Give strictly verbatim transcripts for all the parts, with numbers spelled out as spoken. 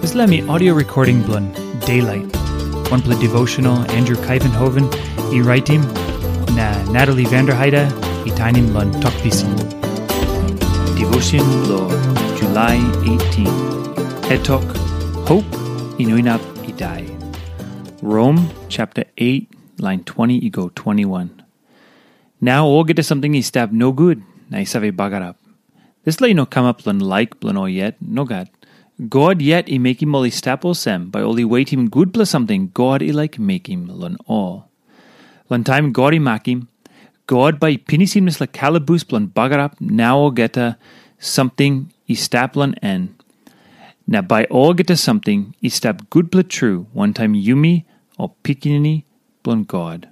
Dispela mi audio recording bilong Daylight, wanpela devotional Andrew Kaivenhoven i raitim, na Natalie Vanderheide i tainim long Tok Pisin. Devotion long July eighteen. Het tok, Hope i no inap i dai. Rom chapter eight, line twenty i go twenty-one. Nau olgeta samting i stap nogut na i save bagarap. Dispela i no kamap long laik bilong ol yet, nogat. God yet i mekim ol i stap olsem, bai ol i wetim gutpela samting God i laik mekim long ol. Long taim God i makim, God bai i pinisim dispela kalabus bilong bagarap na olgeta samting i stap long en. Na bai olgeta samting i stap gutpela tru wantaim yumi ol pikinini bilong God.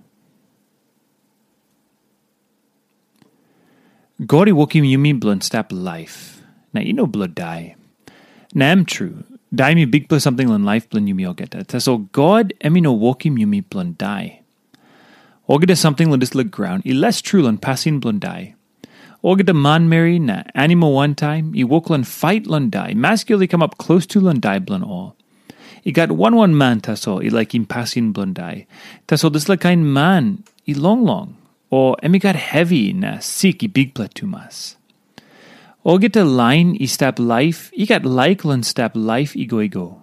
God i wokim yumi bilong stap laip, na i no bilong dai. Na em tru, dai em i bikpela samting long laip bilong yumi olgeta. Tasol God em i no wokim yumi bilong dai. Olgeta samting long dispela graun i les tru long pasin bilong dai. Olgeta manmeri na animal wantaim i wok long fait long dai, maski ol i kamap klostu long dai bilong ol. I gat wan wan man tasol i laikim pasin bilong dai. Tasol dispela kain man i longlong, o em i gat hevi na sik i bikpela tumas. Olgeta lain i stap laip i gat laik long stap laip i go i go.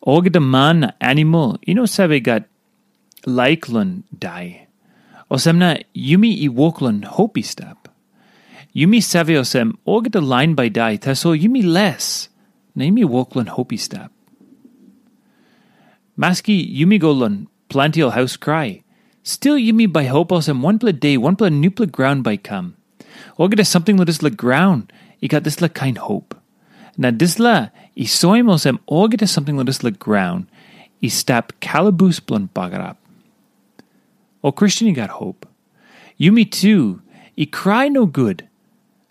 Olgeta man na animal i no save gat laik long dai. Olsem na yumi i wok long hop i stap. Yumi save olsem olgeta lain bai dai, tasol yumi les, na yumi wok long hop i stap. Maski yumi go long planti ol haus krai, stil yumi bai hop olsem wanpela de wanpela nupela graun bai kam. Olgeta samting long dispela graun i gat dispela kain hop. Na dispela i soim olsem olgeta samting long dispela graun i stap kalabus bilong bagarap. O Kristen i gat hop. Yumi tu i krai nogut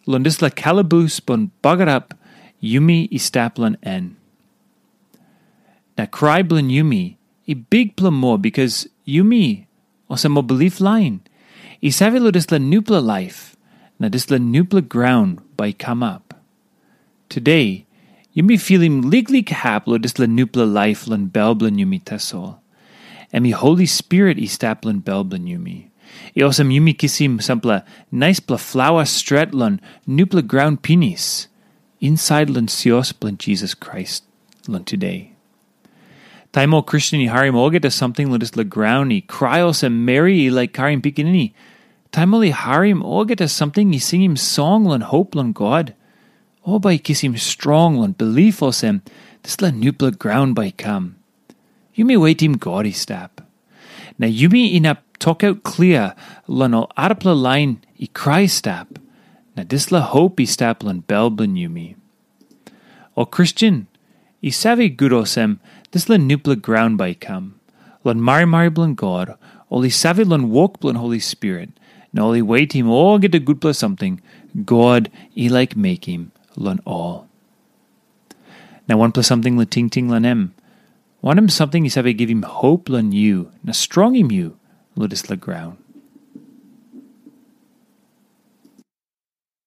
long dispela kalabus bilong bagarap yumi i stap long en. Na krai bilong yumi i bikpela moa bikas yumi, olsem ol bilip lain, i save long dispela nupela laip, na dispela nupela graun bai i kamap. Tude, yumi filim liklik hap long dispela nupela laip long bel bilong yumi tasol. Em i Holi Spirit i stap long bel bilong yumi. I olsem yumi kisim sampela naispela flawa stret long nupela graun pinis, insait long sios bilong Jisas Krais long tude. Taim ol Kristen i harim olgeta samting long dispela graun i krai olsem meri i laik karim pikinini, taim ol i harim olgeta samting i singim song long hop long God, ol bai i kisim strong long bilip olsem dispela nupela graun bai i kam. Yumi wetim God i stap. Na yumi inap tokaut klia long ol arapela lain i krai stap, na dispela hop i stap long bel bilong yumi. Ol Kristen i save gut olsem dispela nupela graun bai i kam. Long marimari bilong God, ol i save long wok bilong Holi Spirit, na ol i wetim olgeta gutpela samting God i laik mekim long ol. Na wanpela samting long tingting long em, wanem samting i save givim hop long yu na strongim yu long dispela graun?